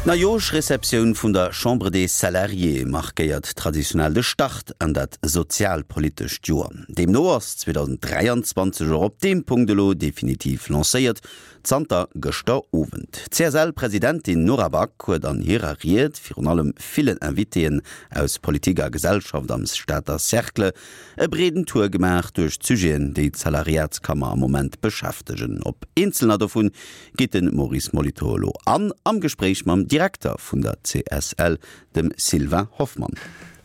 D'Neijoerschreceptioun vun der Chambre des Salariés markéiert traditionell de Start an dat sozialpolitescht Joer. Deemno ass 2023 och op deem Punkt elo definitiv lancéiert, zanter gëschter Owend. D'CSL-Presidentin Nora Back huet an hirer Ried virun allem villen Invitéen aus Politik a Gesellschaft am Stater Cercle e breeden Tour gemaach duerch d'Sujeten, déi d'Salariatskammer am Moment beschäftegen. Op eenzelner dovun geet de Maurice Molitor elo an, am Gespréich mam Direkter vun der CSL, dem Sylvain Hoffmann.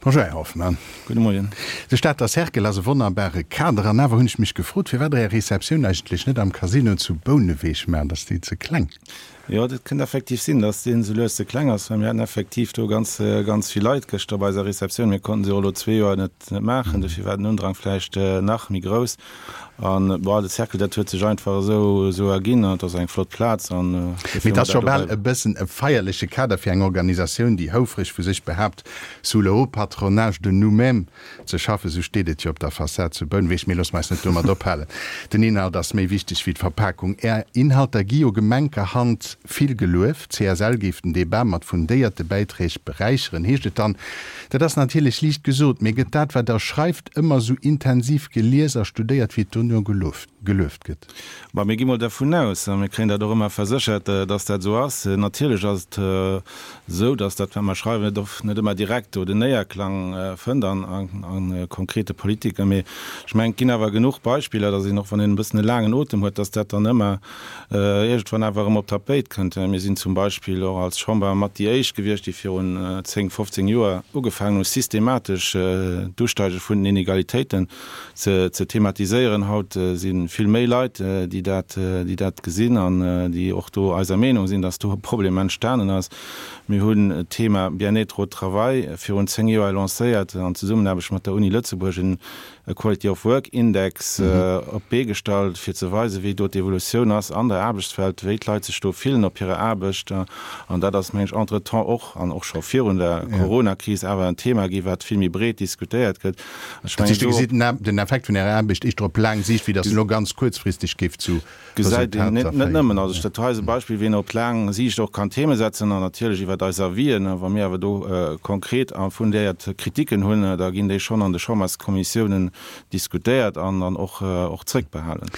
Bonjour Här Hoffmann. Gudde Moien. De Stater Cercle ass e wonnerbare Kader an awer hunn ech mech gefrot, firwat Der Är Receptioun eigentlech net am Casino zu Bouneweg maacht. Ass déi ze kleng? Jo, dat kënnt effektiv sinn, dass deen esou lues ze kleng ass, well mir haten effektiv do ganz, ganz vill Leit gëschter bei eiser Receptioun. Mir konnten se och elo zwee Joer net, net maachen, dofir war den Undrang vläicht nach méi grouss. An, bon, de Cercle, dat huet sech einfach esou, esou erginn an et ass eng flott Plaz an dofir Mee et ass scho bal e bëssen e feierleche Kader fir eng Organisatioun, déi houfreg vu sech behaapt, sous le haut patronage de nous-mêmes Ze schaffen, sou steet et jo op der Fassad zu Bouneweg. Mee loosse mer eis net domat ophalen. Den Inhalt ass méi wichteg wéi d'Verpakung. Är Inhalter gi jo gemenkerhand vill gelueft. D'CSL géif den Debat mat fundéierte Bäiträg beräicheren, heescht et dann. Dat ass natierlech liicht gesot, mee gëtt dat, wat Der schreift, ëmmer sou intensiv gelies a studéiert, wéi et dono gelueft gëtt? Bah, mir gi mol dervun aus, a mir kréien dat och ëmmer verséchert, dass dat esou ass. Natierlech ass et esou, dass dat, wat mer schreiwen, net oft, net ëmmer direkt do den Néierklang fënnt an a konkrete Politiken. Mee ech mengen, et ginn awer genuch Beispiller, dass een och, wann een e bëssen e laangen Otem huet, dass dat dann ëmmer iergendwann awer erëm op d'Tapéit kënnt. Mir sinn zum Beispill och als Chamber mat déi éischt gewiescht, déi virun 10, 15 Joer ugefaangen hu systematesch d'Usteige vun den Inegalitéiten ze thematiséieren. Haut si vill méi Leit, déi dat, déi dat gesinn an déi och do eiser Meenung sinn, dass do e Problem entstanen ass. Mir hunn d'Thema Bien-être au travail virun 10 Joer lancéiert an Zesummenaarbecht mat der Uni Lëtzebuerg en Quality of Work Index op d'Bee gestallt, fir ze weisen, wéi do d'Evolutioun ass an der Aarbechtswelt, wéi d'Leit sech do fillen op hirer Aarbecht. An dat ass, meng ech, entretemps och, an och scho virun der Coronakris, awer en Thema gi wat vill méi breet diskutéiert gëtt. Ech mengen, do. Gesitt den Effekt vun Ärer Aarbecht éischter op laang Siicht, wéi datt en elo ganz kuerzfristeg géif zu Gesäit een net nëmmen. Also dat hei ass e Beispill, wéi een op laang Siicht och kann Theme setzen an natierlech iwwert eis Avisen. Wa mir awer do konkret a fundéiert Kritiken hunn, da ginn déi schonn an de Chamberskommissiounen diskutéiert an dann och och zréckbehalen.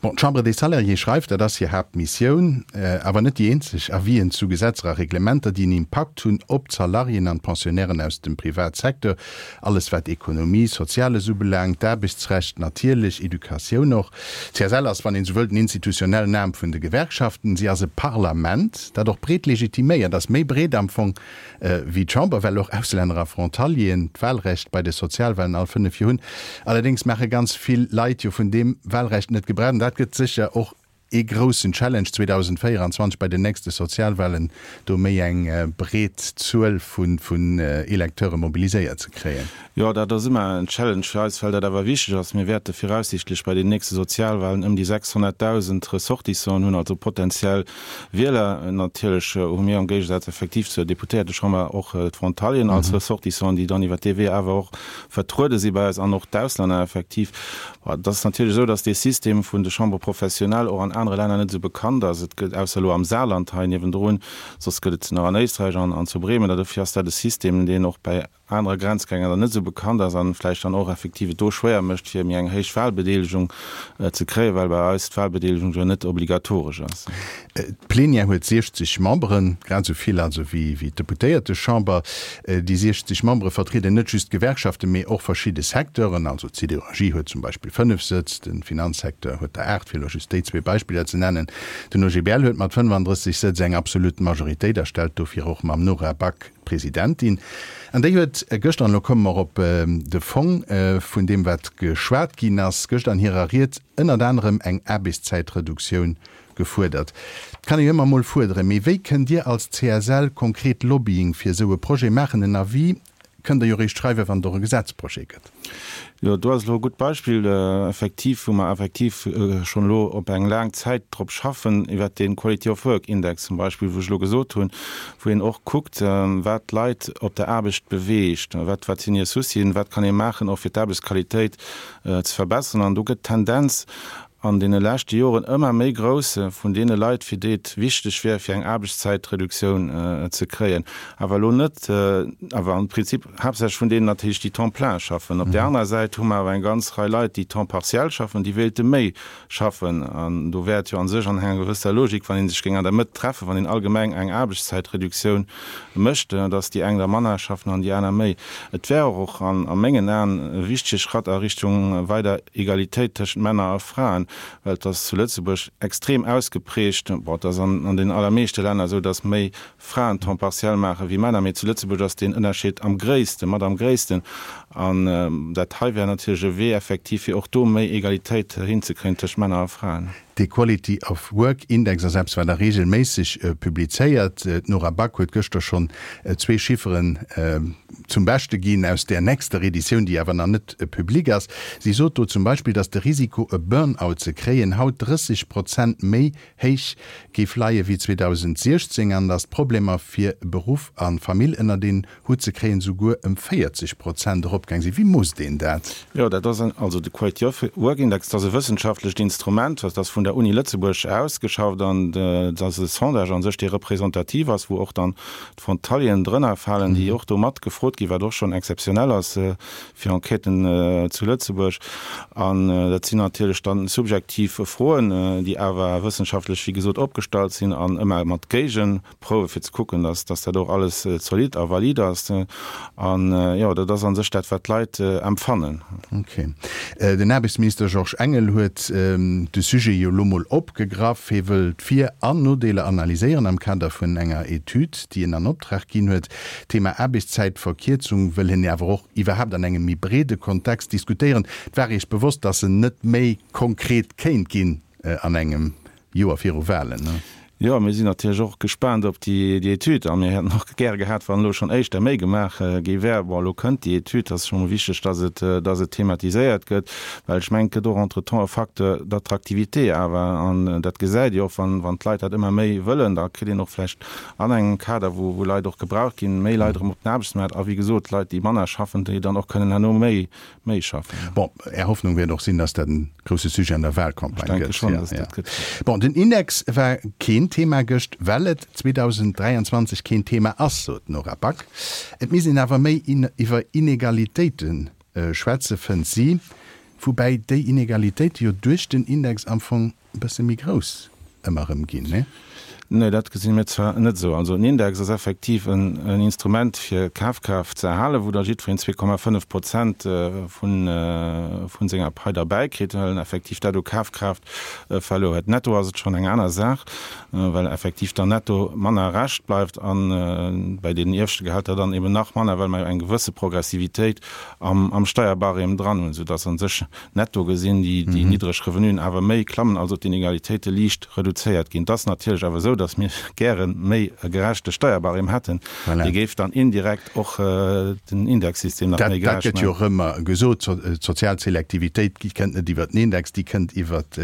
Bon, d'Chambre des Salariés schreift, dat ass hir Haaptmissioun, awer net déi eenzeg, Avisen zu Gesetzer a Reglementer, déi en Impakt hunn op d'Salariéen an d'Pensionnairen aus dem Privatsecteur. Alles wat Ekonomie, Soziales ubelaangt, d'Aarbechtsrecht natierlech, Educatioun och. D'CSL ass, wann een esou wëllt, den institutionellen Aarm vun de Gewerkschaften. Si ass e Parlament, dat och breet legitiméiert ass, méi breet am Fong wéi d'Chamber, well och Auslänner a Frontalieren d'Wahlrecht bei de Sozialwahlen all 5 Joer hunn. Allerdéngs maache ganz vill Leit jo vun deem Wahlrecht net Gebrauch an dat gëtt sécher och ee groussen Challenge 2024 bei den nächste Sozialwahlen, do méi eng breet Zuel vun Electeure mobiliséiert ze kréien. Jo, dat ass ëmmer en Challenge fir eis, well dat awer wichteg ass. Mir wäerte viraussiichtlech bei den nächste Sozialwahlen ëm déi 600.000 Ressortissanten hunn, also potentiell Wieler. Natierlech hu mir am Géigesaz effektiv zur Deputéiertechamber och d'Frontalieren als Ressortissanten, déi dann iwwer dee Wee awer och vertruede si bei eis an och d'Auslänner effektiv. Et ass natierlech esou, datt dee System vun de Chambres professionnelles och an anere Länner net esou bekannt ass. Et gëtt, ausser elo am Saarland hei niewendrun, soss gëtt et se nach an Éisträich an an zu Bremen. A dofir ass dat e System, deen och bäi anere Grenzgänger dann net esou bekannt ass an vläicht dann och effektiv et do schwéier mécht, fir méi eng héich Wahlbedeelegung ze kréien, well bei eis d'Wahlbedeelegung jo net obligatoresch ass. D'Plenière huet 60 Memberen, grad esou vill also wéi d'Deputéiertechamber. Déi 60 Membere vertrieden net just d'Gewerkschaften, mee och verschidde Secteuren. Also d'Siderurgie huet zum Beispill 5 Sëtz, de Finanzsecteur huet der 8, fir elo just déi zwee Beispiller ze nennen. Den OGBL huet mat 35 Sëtz eng absolut Majoritéit a stellt dofir och mam Nora Back d'Presidentin. An déi huet gëschter, an elo komme mer op de Fong vun deem wat geschwat ginn ass, gëschter an hirer Ried ënnert anerem eng Aarbechtszäitreduktioun Gefuerdert kann ee jo ëmmer mol fuerderen, mee wéi kënnt Dir als CSL konkret Lobbying fir esou e Projet maachen? En Avis kënnt Der jo réischt schreiwen, wann et och e Gesetzprojet gëtt. Jo, do ass elo e gutt Beispill, effektiv, wou mer effektiv schonn elo op eng laang Zäit drop schaffen, iwwert dee Quality of Work Index zum Beispill, wou ech elo gesot hunn, wou een och kuckt, wat d'Leit op der Aarbecht beweegt, wat, wat sinn hir Soucien, wat kann ee maachen och fir d'Aarbechtsqualitéit ze verbessern. An do gëtt d'Tendenz. an deene leschte Joren ëmmer méi grouss vun deene Leit, fir déi et wichteg wär, fir eng Aarbechtszäitreduktioun ze kréien. Awer elo net, awer am Prinzip haaptsächlech vun deenen natierlech, déi Temps plein schaffen. Op där anerer Säit hu mer awer eng ganz Rei Leit, déi Temps partiel schaffen, déi wéilte méi schaffen. An do wär et jo a sech an enger gewësser Logik, wann ee sech géing an der Mëtt treffen, wann een allgemeng eng Aarbechtszäitreduktioun mécht, dass déi eng da manner schaffen an déi aner méi. Et wär och a mengen Aen e wichtege Schratt a Richtung weider Egalitéit tëschent Männer a Fraen, well et ass zu Lëtzebuerg extrem ausgeprägt, bon, et ass an den allermeeschte Länner esou, dass méi Fraen Temps partiel maache wéi Männer, mee zu Lëtzebuerg ass deen Ënnerscheed am gréissten, mat am gréissten. An dat hei wär natierlech e Wee effektiv, fir och do méi Egalitéit hinzekréien tëscht Männer a Fraen. De Quality of Work Index ass eppes, wat da reegelméisseg publizéiert. D'Nora Back huet gëschter schonn zwee Chifferen zum Beschte ginn aus där nächster Editioun, déi awer nach net public ass. Si sot do zum Beispill, datt de Risiko e Burn-out ze kréien haut 30 Prozent méi héich géif leie wéi 2016 an datt d'Problemer fir Beruff a Famill ënnert een Hutt ze kréien souguer ëm 40 Prozent eropgaang sinn. Wéi moosst een dat? Jo, dat ass also de Quality of Work Index, dat ass e wëssenschaftlecht Instrument, dat ass vun der Uni Lëtzebuerg ausgeschafft an dat ass e Sondage a sech, dee representativ ass, wou och dann d'Frontalieren drënner falen, déi och do mat gefrot ginn, wat och schonn exzeptionell ass fir Enquêten zu Lëtzebuerg. An dat sinn natierlech dann subjektiv Froen, déi awer wëssenschaftlech, wéi gesot, opgestallt sinn an ëmmer mat Géigeprouwe fir ze kucken, dass dass dat och alles zolidd a valid ass. An jo, dat ass a sech dat, wat d'Leit empfannen. Ok. Den Aarbechtsminister Georges Engel huet de Sujet jo elo mol opgegraff. Hie wëll d'Vir an Nodeeler analyséieren am Kader vun enger Etüd, déi en an Optrag ginn huet. D'Thema Aarbechtszäitverkierzung wëll hien awer och iwwerhaapt an engem méi breede Kontext diskutéieren. Et war Iech bewosst, datt en net méi konkret kéint ginn an engem Joer viru Walen, ne? Jo, mir sinn natierlech och gespaant op déi Etüd a mir hätten och gäre gehat, wann elo schonn éischter méi gemaach gi wär. Bon, elo kënnt déi Etüd, et ass scho mol wichteg, datt et, datt et thematiséiert gëtt, well ech mengen, et gëtt och entretemps e Facteur d'attractivité awer, an dat gesäit Dir och, wann, wann d'Leit dat ëmmer méi wëllen, da kritt een och vläicht an engem Kader, wou, wou Leit och gebraucht ginn, méi Leit erëm op den Aarbechtsmaart a wéi gesot, Leit, déi manner schaffen, déi dann och kënnen herno méi, méi schaffen. Bon, Är Hoffnung wäert och sinn, dass dat en grousse Sujet an der Wahlcampagne gëtt. Ech denke schonn, dass dat gëtt. Bon, den Index war keen Thema gëscht, well et 2023 keen Thema ass, sot d'Nora Back. Et misst een awer méi iwwer Inegalitéite schwätze, fënnt si. Woubäi déi Inegalitéite jo duerch den Index am Fong e bësse méi grouss ëmmer erëm ginn, nee? Nee, dat gesi mir zwar net esou. Also en Index ass effektiv en Instrument fir d'Kafkraaft ze erhalen, wou da jiddwereen 2,5 Prozent vu senger Pai derbäi kritt, well en effektiv dat u Kafkraaft verluer huet. Netto ass et schonn eng aner Saach, well effektiv dann netto manner Rescht bleift a bei deenen ieweschte Gehälter dann eben nach manner, well mer jo eng gewësse Progressivitéit am Steierbarème dran hunn, soudass a sech Netto gesinn déi niddreg Revenuen awer méi klammen, also d'Inegalitéite liicht reduzéiert ginn. Et ass natierlech awer esou, datt mir gäre méi e gerechte Steierbarème hätten. Dee géif dann indirekt och den Indexsystem nach méi gerecht maachen. Dat gëtt jo och ëmmer gesot, d'sozial Selektivitéit kënnt net iwwert den Index, déi kënnt iwwert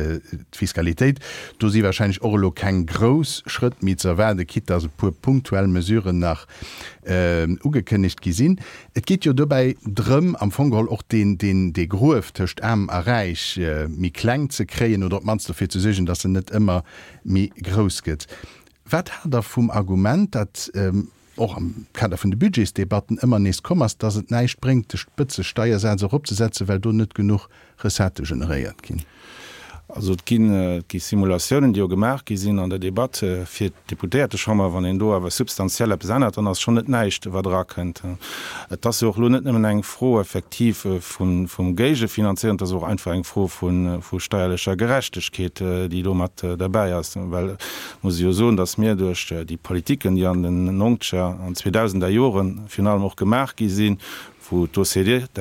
d'Fiskalitéit. Do si wahrscheinlech och elo keng grouss Schrëtt méi ze erwaarden, quitte datt e puer punktuell Mesuren nach ugekënnegt gi sinn. Et geet jo dobäi drëm, am Fong geholl och deen, deen, dee Gruef tëscht Aarm a Räich méi kleng ze kréien oder op d'mannst dofir ze suergen, datt en net ëmmer méi grouss gëtt. Wat haalt Der vum Argument, dat och am Kader vun de Budgetsdebatten ëmmer nees komm ass, datt et näischt bréngt, de Spëtzesteiersaz eropzesetzen, well do net genuch Recettë generéiert ginn? Also et ginn, et gi Simulatiounen, déi jo gemaach gi sinn an der Debatt fir d'Deputéiertechamber. Wann een do awer substantiell eppes ännert, dann ass schonn net näischt, wat erakënnt. Et ass jo och elo net nëmmen eng Fro effektiv vun, vum Géigefinanzéieren, et ass och einfach eng Fro vu, vu steierlecher Gerechtegkeet, déi do mat derbäi ass. Well et muss ee jo soen, datt mir duerch déi Politiken, déi an den nongzeger an zweedausender Jore virun allem och gemaach gi sinn, wou d'OCDE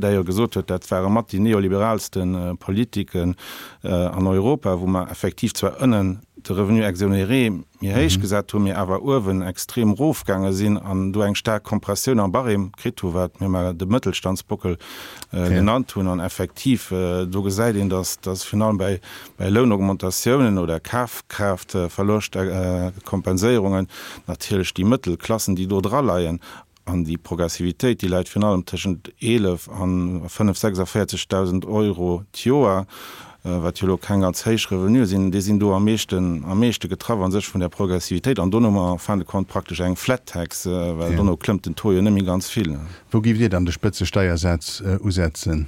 d'ailleurs gesot huet, dat ware mat déi neoliberaalste Politiken an Europa, wou mer effektiv zwar ënnen de Revenu exonéré méi héich gesat hunn, mee awer uewen extrem erofgaange sinn an do eng staark Kompressioun am Barème kritt hu, wat mir mar de Mëttelstandsbockel genannt hunn. An effektiv, do gesäit een, datt virun allem bäi Lounaugmentatiounen oder Kafkraaftverloschtkompenséierungen natierlech déi Mëttelklassen, déi do draleien, An déi Progressivitéit, déi läit virun allem tëschent 11 an 5 46.000 Euro d'Joer. wat jo elo keng ganz héich Revenue sinn, déi sinn do am meeschten, am meeschte getraff a sech vun där Progressivitéit. An dono hu mer en fin de compte praktesch eng Flat Tax, well dono klëmmt den Taux jo net méi ganz vill. Wou géift Dir dann de Spëtzesteiersaz usetzen?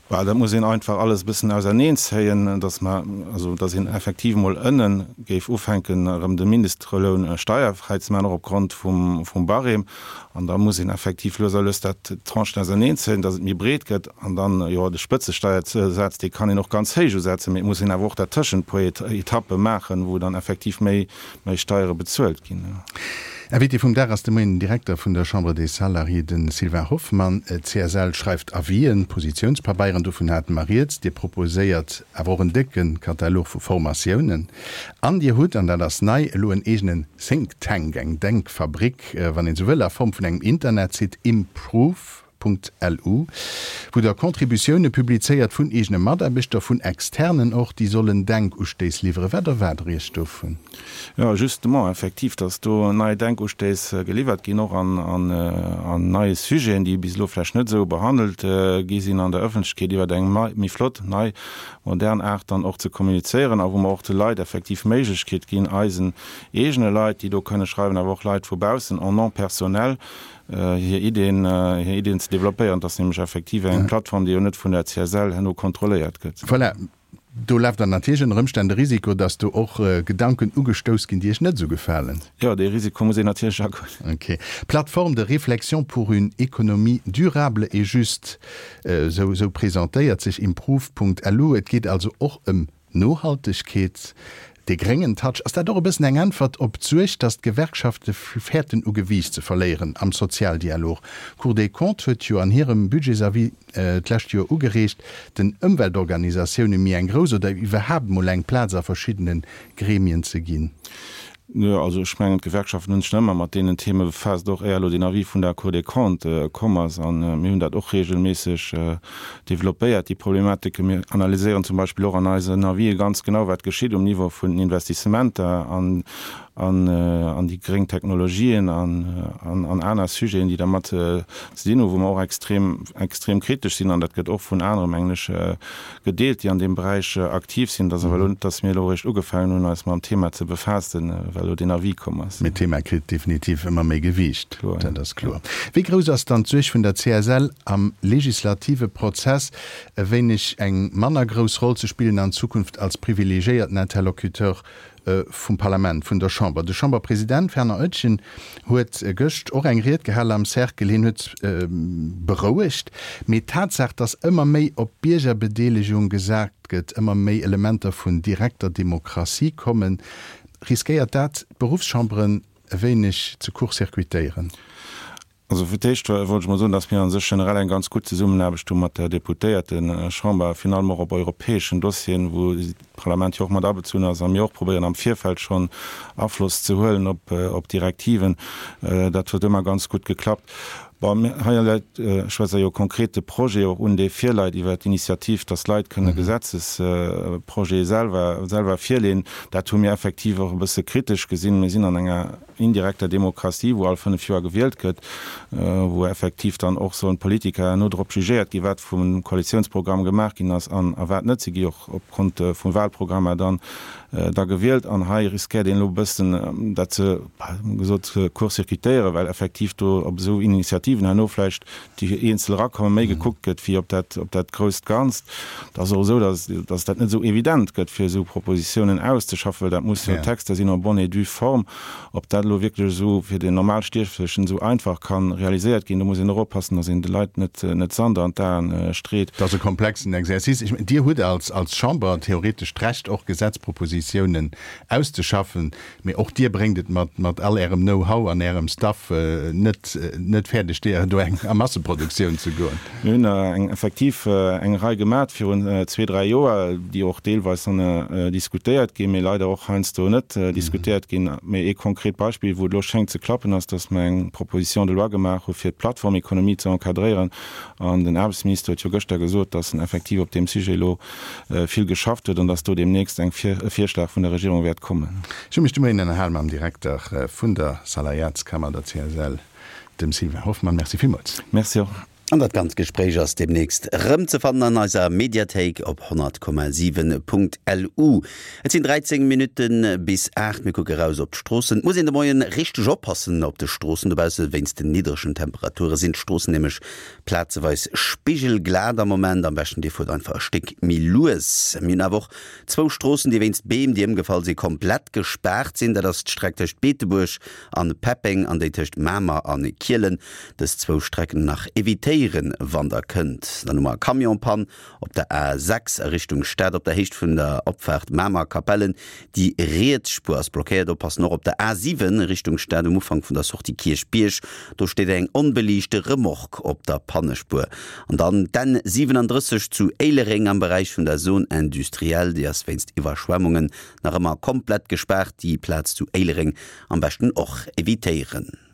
Bah, dat muss een einfach alles e bëssen auserneenzéien, dass mer, also dass een effektiv emol ënne géif ufänken, erëm de Mindestloun steierfräi ze maachen, och opgrond vum, vum Barème. An da muss een effektiv lues a lues dat, d'Tranchen auserneenzéien, dass et méi breet gëtt. An dann, jo, de Spëtzesteiersaz, dee kann een och ganz héich usetzen, mee et muss een awer och dertëschent e puer Etappe maachen, wou dann effektiv méi, méi Steiere bezuelt ginn. Invité vum Dag ass de Moien den Direkter vun der Chambre des Salariés, de Sylvain Hoffmann. D'CSL schreift Avisen, Positiounspabeieren, dovun hate mer rieds. Dir proposéiert awer och en décke Katalog vu Formatiounen. An Dir hutt, an dat ass nei, elo en eegenen Think Tank, eng Denkfabrik, wann een esou wëll, a Form vun engem Internetsite, Improve. Lu, wou Der Contributioune publizéiert vun eegene Mataarbechter, vun Externen och, déi sollen Denkustéiss liwweren. Wat erwaart Der Iech dovun? Jo, justement, effektiv, dass do nei Denkustéiss geliwwert ginn, och an neie Sujeten, déi bis elo vläicht net esou behandelt gi sinn an der Ëffentlechkeet, iwwer eng méi flott, nei, modern Aart dann och ze kommunizéieren a wou mer och de Leit effektiv d'Méiglechkeet ginn, eisen eegene Leit, déi do kënne schreiwen, awer och Leit vu baussen en nom personnel, hir Ideen, hir Ideen ze développéieren. Et ass nämlech effektiv eng Plattform, déi jo net vun der CSL herno kontrolléiert gëtt. Voilà, do leeft dann natierlech ënner Ëmstänn de Risiko, dass do och Gedanken ugestouss ginn, déi Iech net esou gefalen. Jo, dee Risiko muss een natierlech agoen. Ok. Plateforme de réflexion pour une économie durable et juste, esou, esou presentéiert sech improve.lu. Et geet also och ëm Nohaltegkeet, dee gréngen Touch, ass dat och e bëssen eng Äntwert op d'Suerg, datt d'Gewerkschafte fäerten u Gewiicht ze verléieren am Sozialdialog? D'Cour des Comptes huet jo an hirem Budgetsavis d'lescht Joer ugereegt, den Ëmweltorganisatioune méi eng grouss oder iwwerhaapt mol eng Plaz a verschiddene Gremien ze ginn. Jo, also ech mengen, d'Gewerkschaften hunn sech nach ëmmer mat deenen Theme befaasst, och éier elo deen Avis vun der Cour des Comptes komm ass. A mir hunn dat och regelméisseg developpéiert, déi Problematike. Mir analyséieren zum Beispill och an eisen Avisë ganz genau, wat geschitt um Niveau vun den Investissementer an an déi gréng Technologien an an aner Sujeten, déi dermat ze dinn hunn, wou mer och extrem, extrem kritesch sinn. An dat gëtt och vun anere, mengen ech, gedeelt, déi an deem Beräich aktiv sinn. Et ass awer elo net, dass mir elo eréischt ugefaangen hunn, eis mam Thema ze befaassen, well elo deen Avis komm ass. Mee d'Thema kritt definitiv ëmmer méi Gewiicht, dat ass kloer. Wéi grouss ass dann d'Suerg vun der CSL am legislative Prozess, e wéineg eng manner grouss Roll ze spillen an Zukunft als privilegiéierten Interlocuteur vum Parlament, vun der Chamber. De Chamberpresident Werner Oetjen huet gëscht och eng Ried gehal am Cercle. Hien huet berouegt, mee d'Tatsaach, datt ëmmer méi op Biergerbedeelegung gesat gëtt, ëmmer méi Elementer vun direkter Demokratie kommen, riskéiert dat d'Beruffschamberen e wéineg ze court-circuitéieren. Also fir d'éischt wollt ech mol soen, dass mir a sech generell eng ganz gutt Zesummenaarbecht hu mat der Deputéiertechamber, virun allem och op europäeschen Dossieren, wou d'Parlament jo och mat abezunn ass a mir och probéieren am Virfeld schonn Afloss ze huelen op Direktiven. Dat huet ëmmer ganz gutt geklappt. Bon, hei läit, ech schwätze jo konkret de Projet och un, dee virleit iwwert d'Initiativ, dass d'Leit kënne Gesetzesprojete selwer, selwer virleeën. Dat hu mir effektiv och e bësse kritesch gesinn. Mir sinn an enger indirekter Demokratie, wou all 5 Joer gewielt gëtt, wou effektiv dann och sollen d'Politiker herno drop jugéiert ginn, wat vum Koalitiounsprogramm gemaach ginn ass an a wat net. Si gi och opgrond vu Wahlprogrammer dann da gewielt. An hei riskéiert een elo e bëssen dat ze, gesot, court-circuitéieren, well effektiv do op esou Initiativen herno vläicht déi eenzel erakommen, méi gekuckt gëtt wéi op dat, op dat grousst Ganzt. Et ass och esou, dass, dass dat net esou evident gëtt, fir esou Propositionen auszeschaffen, well dat musse jo Texter sinn en bonne et due forme. Ob dat elo wierklech esou fir den Normalstierflechen esou einfach ka realiséiert ginn, do muss een och oppassen, dass een de Leit net, net Sand an d'Aen street. Et ass e komplexen Exercice. Ech mengen, Dir hutt als, als Chamber theoretesch d'Recht, och Gesetzpropositiounen auszeschaffen. Mee och Dir bréngt et mat mat all Ärem Know-how an Ärem Staff net net fäerdeg, déi do eng a Masseproduktioun ze goen. Mir hunn der eng effektiv eng Rei gemat virun zwee, dräi Joer, déi och deelweis dann diskutéiert ginn, mee leider och heiansdo net diskutéiert ginn. Mee ee konkret Beispill, wou et elo schéngt ze klappen, ass, datt mer eng Proposition de loi gemaach hu fir d'Plattformekonomie ze encadréieren. An den Aarbechtsminister huet jo gëschter gesot, datt en effektiv op deem Sujet elo vill geschafft huet an dass do deemnächst eng e Virschlag vun der Regierung wäert kommen. Ech hu mech de Moien ënnerhal mam Direkter vun der Salariatskammer, der CSL, dem Sylvain Hoffmann. Merci villmools. Merci och. An dat ganzt Gespréich ass deemnächst erëmzefannen an eiser Mediathéik op 100,7.lu. Et sinn 13 Minutte bis 8. Mir kucke raus op d'Stroossen. Et muss een de Moien richteg oppassen op de Stroossen dobausse. Wéinst den niddregen Temperature sinn d'Stroossen nämlech plazeweis spigelglat am Moment. Am beschten dir fuert einfach e Stéck méi lues. Mir hunn awer och zwou Stroossen, déi wéinst Beem, déi ëmgefall sinn, komplett gespaart sinn. Dat ass d'Streck tëscht Beetebuerg an Peppeng an déi tëscht Mamer an Kielen. Dës zwou Strecken nach evitéieren, wann der kënnt. Dann hu mer e Camion-Pann op der A 6 a Richtung Stad op der Héicht vun der Opfaart Mamer-Capellen. Déi riets Spuer ass blockéiert. Oppassen och op der A 7 Richtung Stad um Ufank vun der Sortie Kierchbierg. Do steet eng onbeliichte Remorque op der Pannespuer. An dann d'N 37 zu Éilereng am Beräich vun der Zone industrielle. Déi ass wéinst Iwwerschwemmungen nach ëmmer komplett gespaart. Déi Plaz zu Éilereng am beschten och evitéieren.